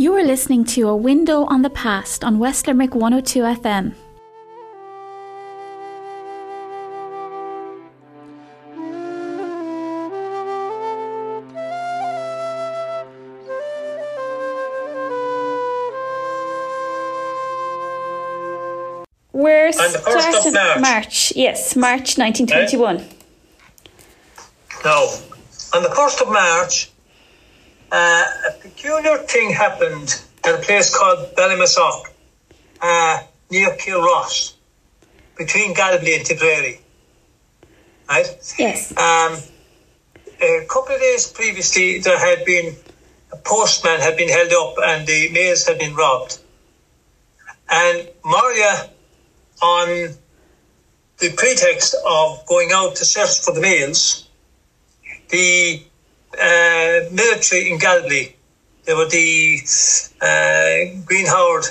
You are listening to A Window on the Past on West Limerick 102 FM. We're starting March. Yes, March 1921. Right. Now, on the 1st of March, a peculiar thing happened at a place called Ballymasock, near Kilross, between Galway and Tipperary. Right? Yes. A couple of days previously, there had been a postman had been held up and the mails had been robbed. And Maria, on the pretext of going out to search for the mails, the military in Galway, they were the Green Howard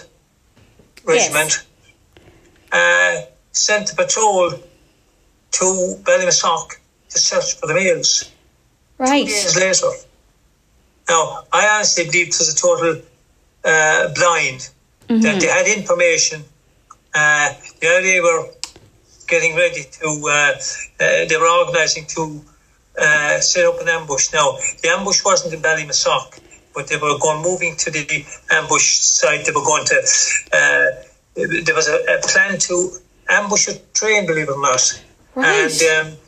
Regiment, sent a patrol to Ballymasock to search for the mails. Right. 2 days later. Now, I honestly believe it was a total blind, that they had information. The IRA were getting ready to, they were organising to set up an ambush. Now, the ambush wasn't in Ballymasock, but they were moving to the ambush site. They were going to, there was a plan to ambush a train, believe it or not. Right. And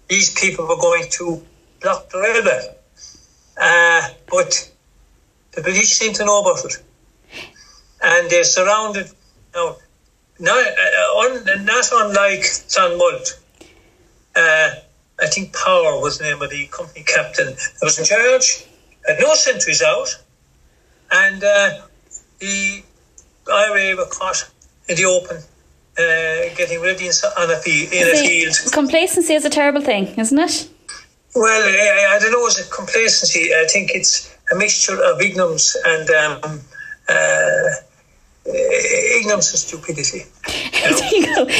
these people were going to block the railway. But the British seemed to know about it. And they surrounded, now, not unlike Clonmult, I think Power was the name of the company captain that was in charge, had no sentries out, and the IRA were caught in the open, getting ready in a field. Complacency is a terrible thing, isn't it? Well, I don't know, is it complacency? I think it's a mixture of ignorance and ignorance and stupidity.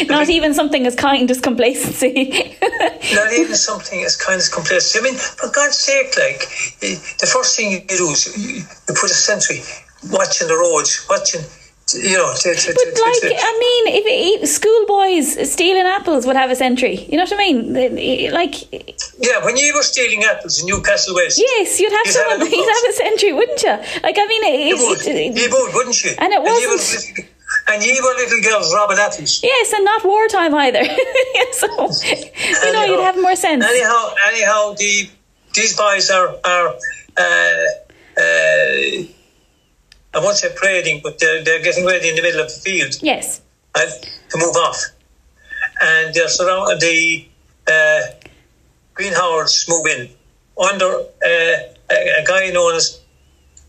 Not even something as kind as complacency. Not even something as kind as complacency. I mean, for God's sake, like, the first thing you do is you put a sentry watching the roads, watching, you know. If schoolboys stealing apples would have a sentry. You know what I mean? Yeah, when you were stealing apples in Newcastle West. Yes, you'd have someone. You'd have a sentry, wouldn't you? Like, I mean, you would, wouldn't you? And it wasn't. And you were little girls robbing apples. Yes, and not wartime either. So, you'd have more sense. Anyhow, these boys are I won't say parading, but they're getting ready in the middle of the field. Yes. Right, to move off. And they're surrounded, the Green Howards move in under a guy known as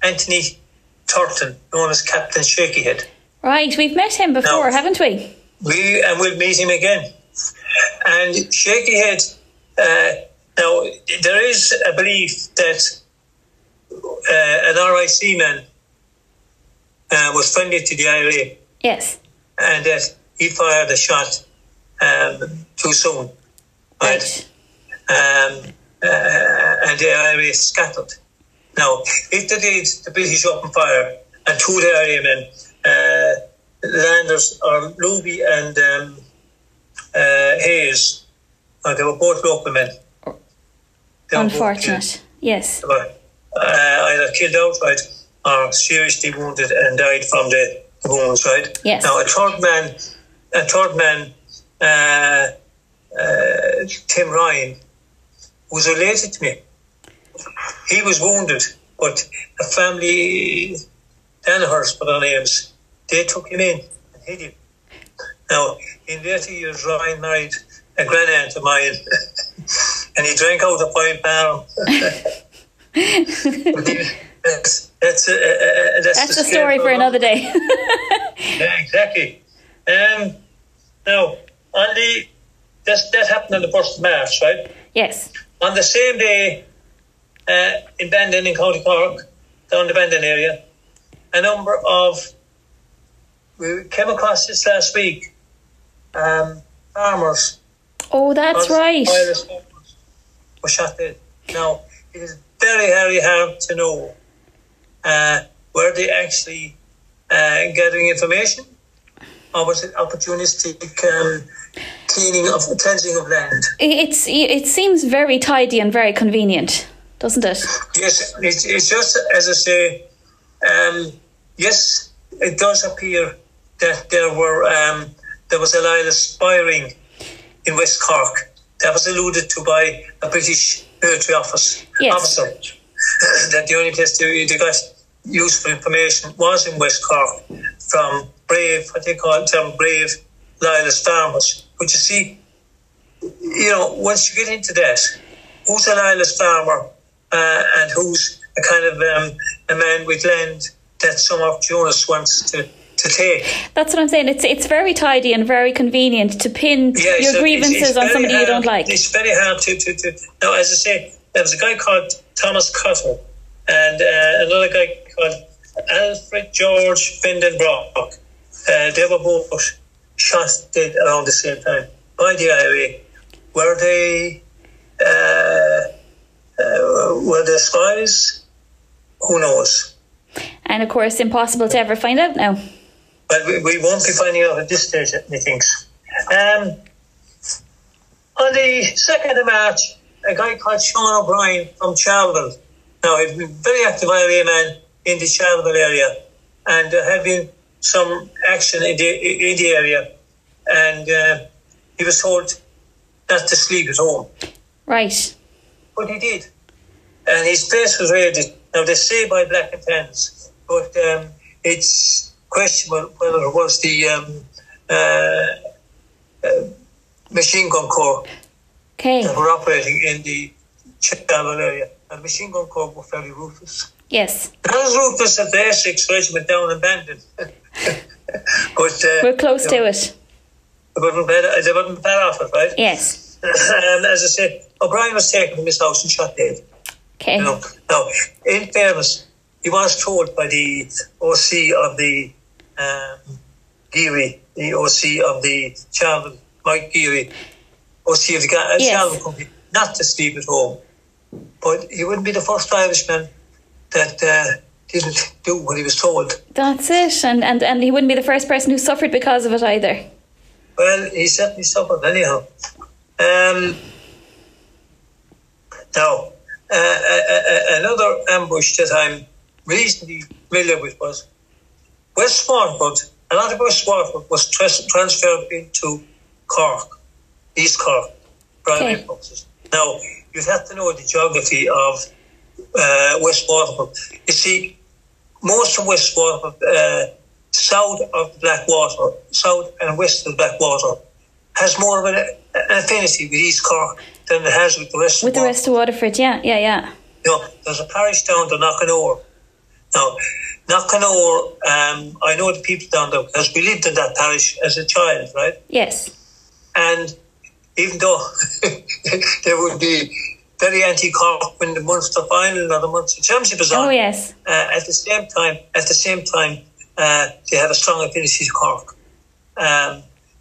Anthony Turton, known as Captain Shakyhead. Right, we've met him before, haven't we? We'll meet him again. And Shakyhead, now there is a belief that an RIC man was friendly to the IRA. Yes. And that he fired a shot too soon. Right. And the IRA scattered. Now, if they did, the British opened fire, and two of the IRA men, Landers or Luby and Hayes, they were both local men. Unfortunate, yes. They were either killed outright or seriously wounded and died from the wounds, right? Yes. Now, a third man, Tim Ryan, was related to me. He was wounded, but a family, Danaher's for their names, they took him in and hid him. Now, in later years, Ryan married a grand-aunt of mine, and he drank out of 5 barrel. That's a story for another day. Yeah, exactly. Now, that happened on the 1st of March, right? Yes. On the same day, in Bandon, in County Cork, down the Bandon area, we came across this last week, farmers. Oh, that's right. Were shot dead. Now, it is very, very hard to know were they actually gathering information, or was it opportunistic cleansing of land? It seems very tidy and very convenient, doesn't it? Yes, it's just as I say. Yes, it does appear that there was a lot of spying in West Cork. That was alluded to by a British military officer. That the only place they got useful information was in West Cork from brave, what they call them, brave loyalist farmers. But you see, once you get into that, who's a loyalist farmer and who's a kind of a man with land that some opportunist wants to take. That's what I'm saying. It's very tidy and very convenient to pin your grievances on somebody you don't like. It's very hard to. Now, as I say, there was a guy called Thomas Cottle and another guy called Alfred George Vindenbrock. They were both shot dead around the same time by the IRA. Were they spies? Who knows? And of course, impossible to ever find out now. Well, we won't be finding out at this stage, methinks. On the 2nd of March, a guy called Sean O'Brien from Charleville. Now, he'd been a very active IRA man in the Charleville area, and there had been some action in the area, and he was told not to sleep at home. Right. But he did. And his place was raided. Now, they say by Black and Tans, but it's questionable whether it was the machine gun corps that were operating in the Charleville area. And machine gun corps were fairly ruthless. Yes. Not as ruthless as the Essex Regiment down in Bandon. But we're close to it. They wouldn't bet off it, right? Yes. And as I said, O'Brien was taken from his house and shot dead. Okay. Now, in fairness, he was told by the OC of the Geary, the OC of the Charleville, Mike Geary, OC of the Charleville Company, not to sleep at home. But he wouldn't be the first Irishman that didn't do what he was told. That's it. And he wouldn't be the first person who suffered because of it either. Well, he certainly suffered anyhow. Now, another ambush that I'm reasonably familiar with was West Swartwood. A lot of West Swartwood was transferred into Cork, East Cork, primary purposes. Now, you'd have to know the geography of West Swartwood. You see, most of West Swartwood, south of the Blackwater, south and west of the Blackwater, has more of an affinity with East Cork than it has with the rest of Waterford. With the rest of Waterford, yeah. There's a parish down to Knockanore. Now, Knockanore, I know the people down there because we lived in that parish as a child, right? Yes. And even though they would be very anti-Cork when the Munster final or the Munster Championship is on. Oh, yes. At the same time, they have a strong affinity to Cork.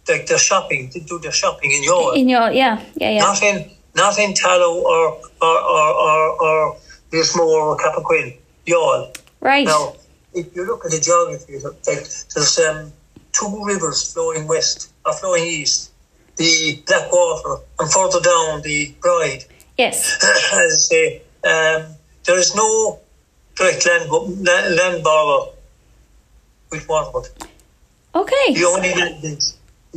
Like their shopping, they do their shopping in Youghal. In Youghal, yeah. Not in Tallow or Lismore or Cappoquin, Youghal. Right. Now, if you look at the geography, there's two rivers flowing west or flowing east. The Blackwater and further down the Bride. Yes. As I say, there is no direct land border with Waterford. Okay. The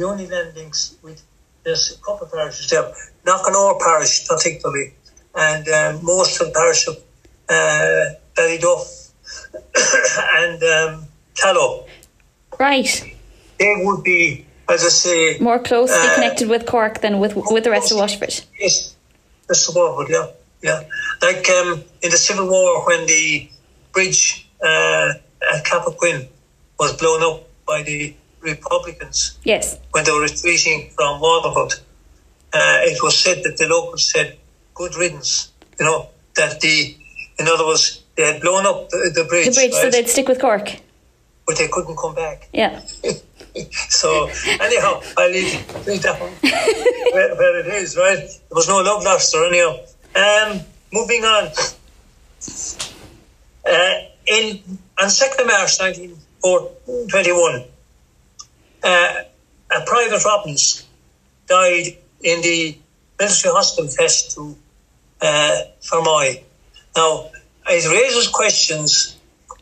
only land links with there's a couple of parishes there. Knockanore parish particularly, and most of the parish of Ballyduff and Tallow. Right. They would be, as I say, more closely connected with Cork than with the rest of Waterford. Yes, that's the Waterford, yeah. Like in the Civil War, when the bridge at Cappoquin was blown up by the Republicans. Yes. When they were retreating from Waterford, it was said that the locals said, "Good riddance." That in other words, they had blown up the bridge. The bridge, right? So they'd stick with Cork. But they couldn't come back. Yeah. So anyhow, I leave that one where it is, right? There was no love lost or anyhow. Moving on. on 2nd of March 1921, a Private Robbins died in the military hospital attached to Fermoy. Now, it raises questions.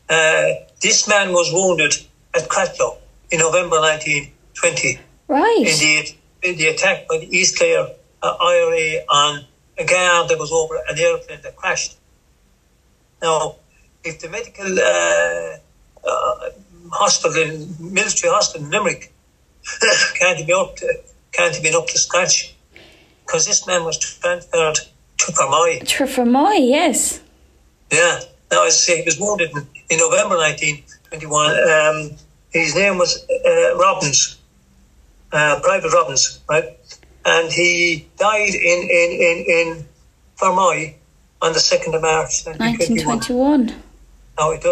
This man was wounded at Cratloe in November 1920. Right. In the attack by the East Clare IRA on a guard that was over an airplane that crashed. Now, if the medical military hospital in Limerick can't have been up to scratch, because this man was transferred to Fermoy. To Fermoy, yes. Yeah. Now, as I say, he was wounded in November 1921. His name was Robbins, Private Robbins, right? And he died in Fermoy on the 2nd of March 1921. Now, it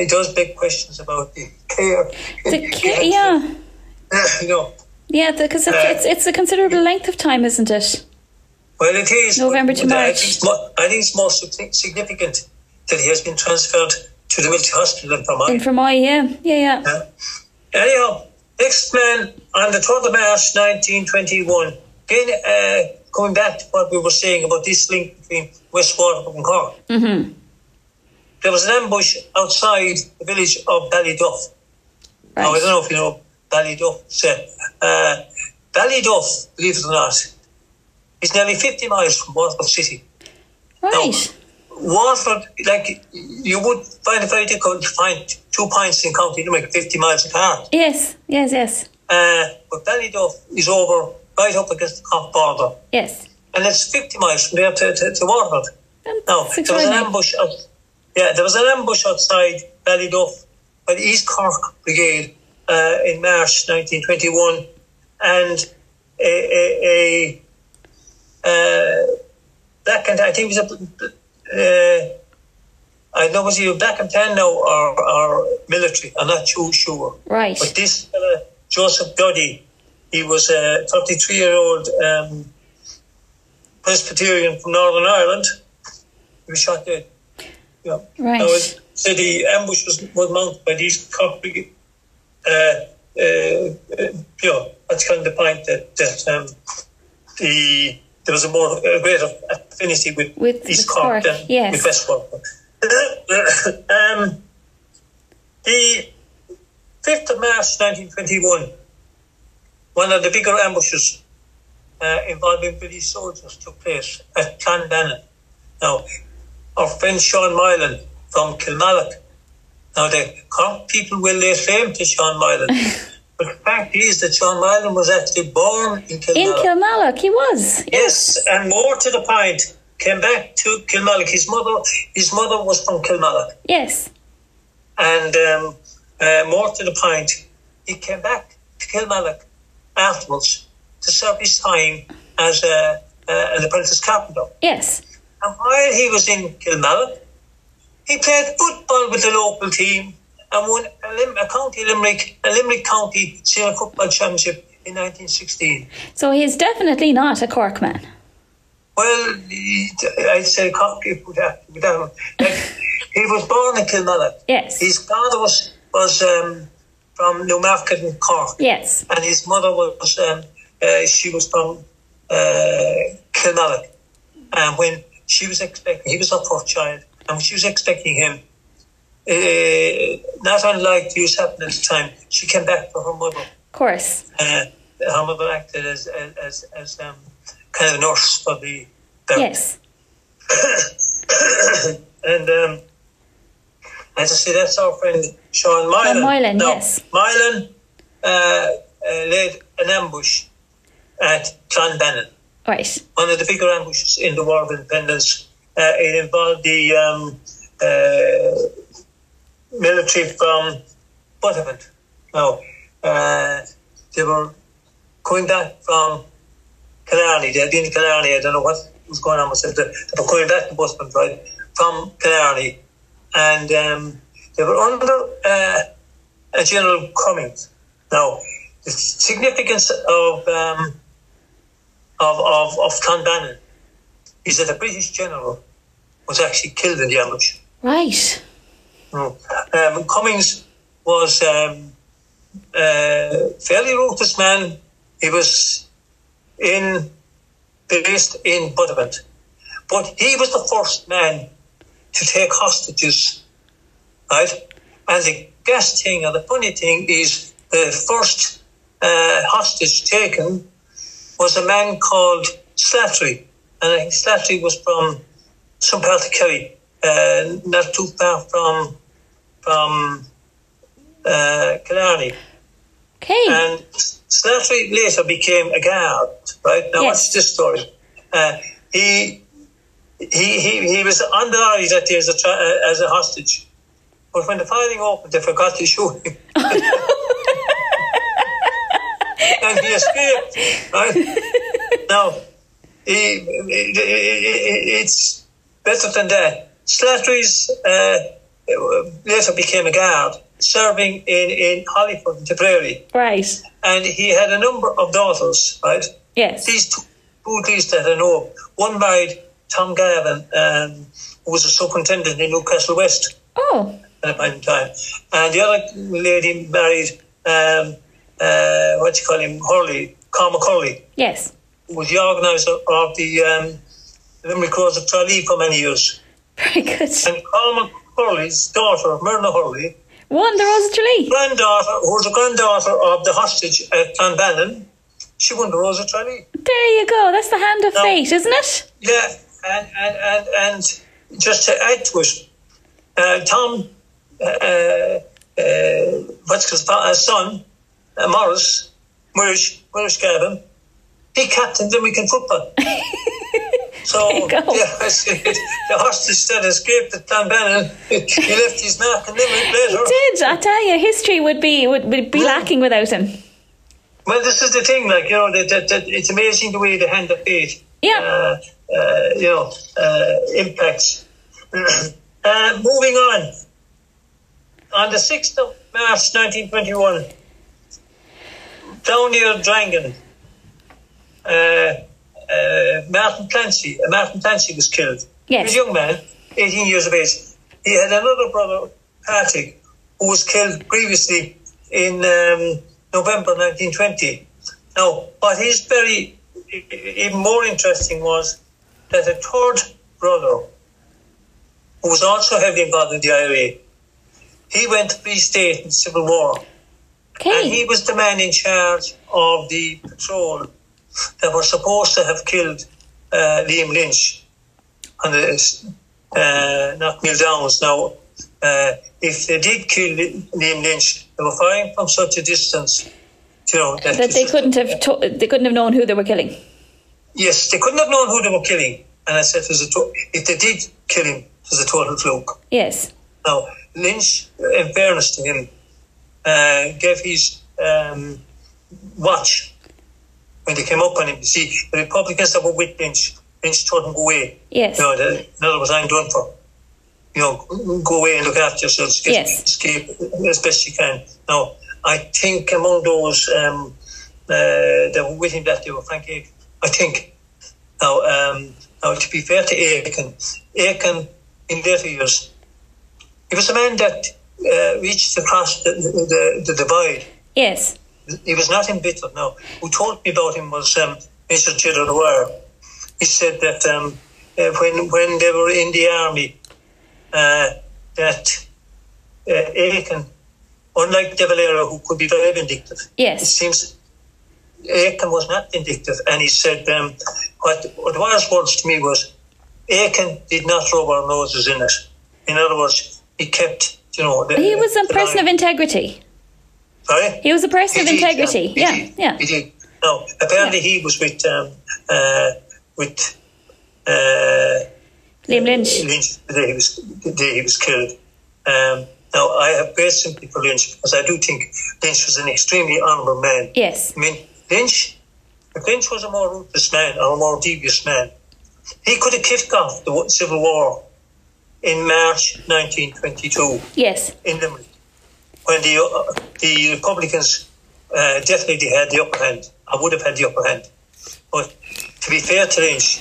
does beg questions about the care. Yeah. You know. Yeah, because it's a considerable length of time, isn't it? Well, it is. November to March. I think it's more significant that he has been transferred to the military hospital in Fermoy. In Fermoy, yeah. Anyhow, next man on the 3rd of March 1921. Again, coming back to what we were saying about this link between West Waterford and Cork. Mm-hmm. There was an ambush outside the village of Ballyduff. Right. Now, I don't know if you know Ballyduff. Ballyduff, believe it or not, is nearly 50 miles from Waterford City. Right. Now, Waterford, like, you would find it very difficult to find 2 points in County Limerick 50 miles apart. Yes. But Ballyduff is over right up against the Cork border. Yes. And it's 50 miles from there to Waterford. Now, there was an ambush outside Ballyduff by the East Cork Brigade in March 1921, and a black and I think it was I don't know was he a black and tan now or military. I'm not too sure. Right. But this Joseph Duddy, he was a 33-year-old Presbyterian from Northern Ireland. He was shot dead. Yeah. Right. Now, so the ambush was mounted by these Cork Brigade. That's kind of the point that there was a greater affinity with East Cork than with West Cork. The 5th of March 1921, one of the bigger ambushes involving British soldiers took place at Clonbannon. Now, our friend Sean Moylan from Kilmallock. Now, the Cork people will lay claim to Sean Moylan. But the fact is that Sean Moylan was actually born in Kilmallock. In Kilmallock, he was. Yes, and more to the point, came back to Kilmallock. His mother was from Kilmallock. Yes. And more to the point, he came back to Kilmallock afterwards to serve his time as an apprentice carpenter. Yes. And while he was in Kilmallock, he played football with the local team and won a Limerick County Senior Football Championship in 1916. So he's definitely not a Cork man. Well, I'd say Cork with that. He was born in Kilmallock. Yes. His father was from Newmarket in Cork. Yes. And his mother was she was from Kilmallock. And when she was expecting, he was her first child, and when she was expecting him, not unlike use happened at the time, she came back for her mother. Of course. Her mother acted as kind of a nurse for the Yes. And as I say, that's our friend Sean Moylan. Sean Moylan, now, yes. Moylan led an ambush at Clonbannon. Right. One of the bigger ambushes in the War of Independence. It involved the military from Buttevant. Now, they were coming back from Killarney. They had been to Killarney. I don't know what was going on with them. They were coming back to Buttevant, right, from Killarney. And they were under a General Cummings. Now, the significance of Clonbannon is that a British general was actually killed in the ambush. Right. Cummings was a fairly ruthless man. He was based in Buttevant. But he was the first man to take hostages, right? And the gas thing, or the funny thing, is the first hostage taken was a man called Slattery. And I think Slattery was from some part of Kerry, not too far from Killarney. Okay. And Slattery later became a guard, right? Now, what's this story? He was on the lorry that day as a hostage. But when the firing opened, they forgot to shoot him. And he escaped, right? Now, it's better than that. Slattery's later became a guard, serving in Hollyford and Tipperary. Right. And he had a number of daughters, right? Yes. These two at least that I know of. One married Tom Gavin, who was a superintendent in Newcastle West. Oh. At a point in time. And the other lady married, Hurley, Cormac Hurley. Yes. Who was the organiser of the Limerick Rose of Tralee for many years. Very good. And Cormac Hurley's daughter, Myrna Hurley, won the Rose of Tralee. Who was the granddaughter of the hostage at Clonbannon, she won the Rose of Tralee. There you go. That's the hand of fate, isn't it? Yeah, and just to add to it, Tom, what's his son, Maurice Gavin, he captained Limerick in football. So, the hostage that escaped at Clonbannon, he left his mark in Limerick later. He did. I tell you, history would be lacking without him. Well, this is the thing, that it's amazing the way the hand of fate, impacts. Moving on the 6th of March 1921, down near Drangan, Martin Clancy was killed. Yes. He was a young man, 18 years of age. He had another brother, Patrick, who was killed previously in November 1920. Now, what is even more interesting was that a third brother, who was also heavily involved in the IRA, he went to Free State in the Civil War. Okay. And he was the man in charge of the patrol that were supposed to have killed Liam Lynch on the Knockmill Downs. Now, if they did kill Liam Lynch, they were firing from such a distance, that they couldn't have known who they were killing. Yes, they couldn't have known who they were killing. And I said, if they did kill him, it was a total fluke. Yes. Now, Lynch, in fairness to him, gave his watch when they came up on him. You see, the Republicans that were with Lynch told him go away. Yes. In other words, I'm done for. Go away and look after yourselves. Escape as best you can. Now, I think among those that were with him that day were Frank Aiken. I think. Now, to be fair to Aiken in later years, he was a man that reached across the divide. Yes. He was not embittered. Now, who told me about him was Mr. Gilder Dwyer. He said that when they were in the army, that Aiken, unlike De Valera, who could be very vindictive, yes, it seems Aiken was not vindictive. And he said, what Dwyer's words to me was, Aiken did not rub our noses in it. In other words, he kept, he was a person of integrity. Sorry? He was a person of integrity. Yeah. He did. No, apparently he was with Liam Lynch. The day he was killed. Now, I have great sympathy for Lynch because I do think Lynch was an extremely honourable man. Yes. I mean, if Lynch was a more ruthless man or a more devious man, he could have kicked off the Civil War in March 1922. Yes. In Limerick, when the Republicans definitely had the upper hand. I would have had the upper hand. But to be fair to Lynch,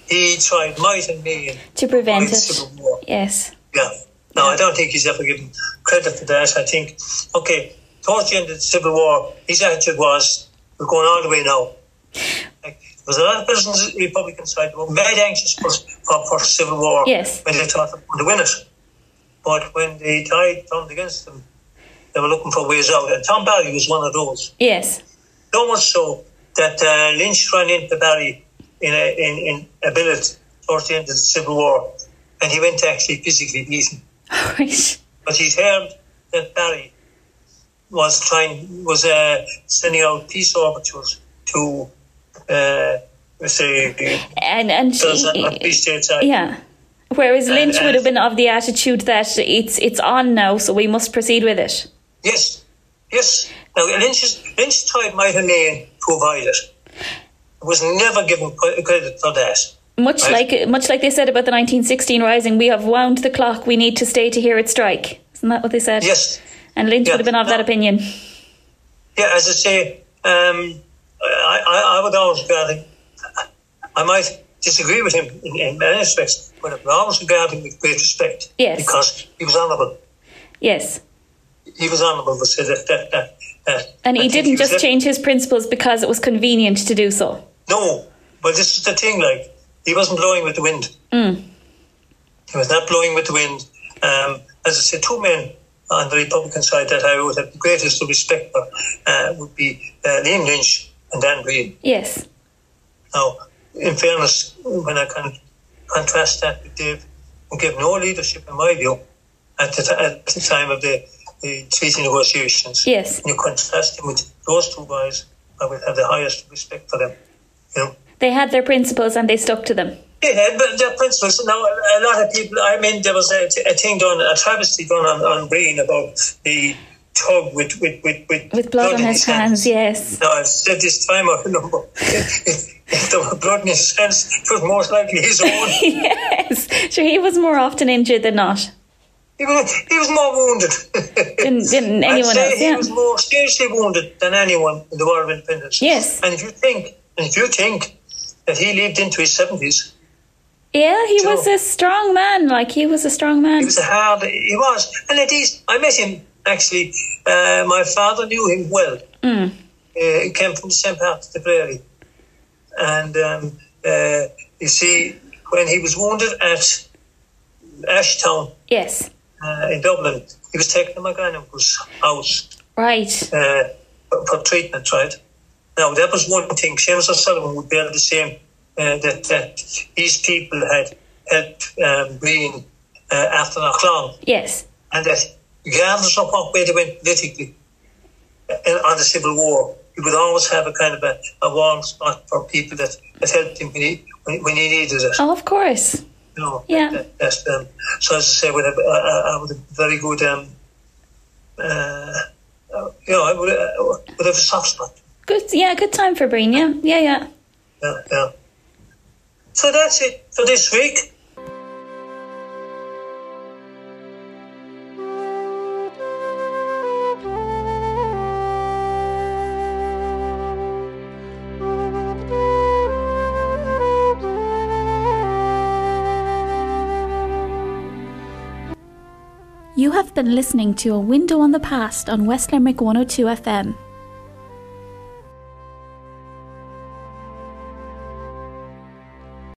he tried might and main to prevent it. Civil War. Yes. Yeah. Now, I don't think he's ever given credit for that. I think, okay, towards the end of the Civil War, his attitude was, we're going all the way now. Like, there was a lot of persons on the Republican side who were very anxious for Civil War when they thought they were going to win it. But when the tide turned against them, they were looking for ways out. And Tom Barry was one of those. Yes. So much so that Lynch ran into Barry in a billet towards the end of the Civil War, and he went to actually physically beat him. Right. But he'd heard that Barry was sending out peace overtures to yeah. Whereas Lynch would have been of the attitude that it's on now, so we must proceed with it. Yes. Now Lynch's tide might have lain to avoid it. It was never given credit for that. Much like they said about the 1916 Rising, we have wound the clock, we need to stay to hear it strike. Isn't that what they said? Yes. And Lynch would have been of that opinion. Yeah, as I say, I would always regard him, I might disagree with him in many respects, but I would always regard him with great respect. Yes. Because he was honourable. Yes. He was honourable, but said that. And he didn't just change his principles because it was convenient to do so. No, but this is the thing, like, he wasn't blowing with the wind. He was not blowing with the wind. As I said, two men on the Republican side that I would have the greatest respect for would be Liam Lynch and Dan Greene. Yes. Now, in fairness, when I contrast that with Dave, who gave no leadership, in my view, at the time of the treaty negotiations. Yes. And you contrast him with those two guys, I would have the highest respect for them. You know? They had their principles and they stuck to them. They had their principles. Now, a lot of people, I mean, there was a thing done, a travesty done on Breen about the tug with blood on his hands, yes. Now, I've said this time, I remember, if there were blood in his hands, it was most likely his own. Yes. Sure, he was more often injured than not. He was more wounded than anyone else. He was more seriously wounded than anyone in the War of Independence. Yes. And if you think that he lived into his 70s. Yeah, he was a strong man. He was a strong man. He was. And at least, I met him, actually. My father knew him well. He came from the same part of the prairie. And, you see, when he was wounded at Ashtown. Yes. In Dublin, he was taken to McGanim's house. Right. For treatment, right? Now, that was one thing. Seamus O'Sullivan would be able to say that these people had helped Breen after Knocklown. Yes. And that regardless of what way they went politically on the Civil War, he would always have a kind of a warm spot for people that helped him when he needed it. Oh, of course. No, yeah. That's so as I say, with a very good, I would have a soft spot. Good time for Breen. Yeah. So that's it for this week. You have been listening to A Window on the Past on West Limerick 102 FM.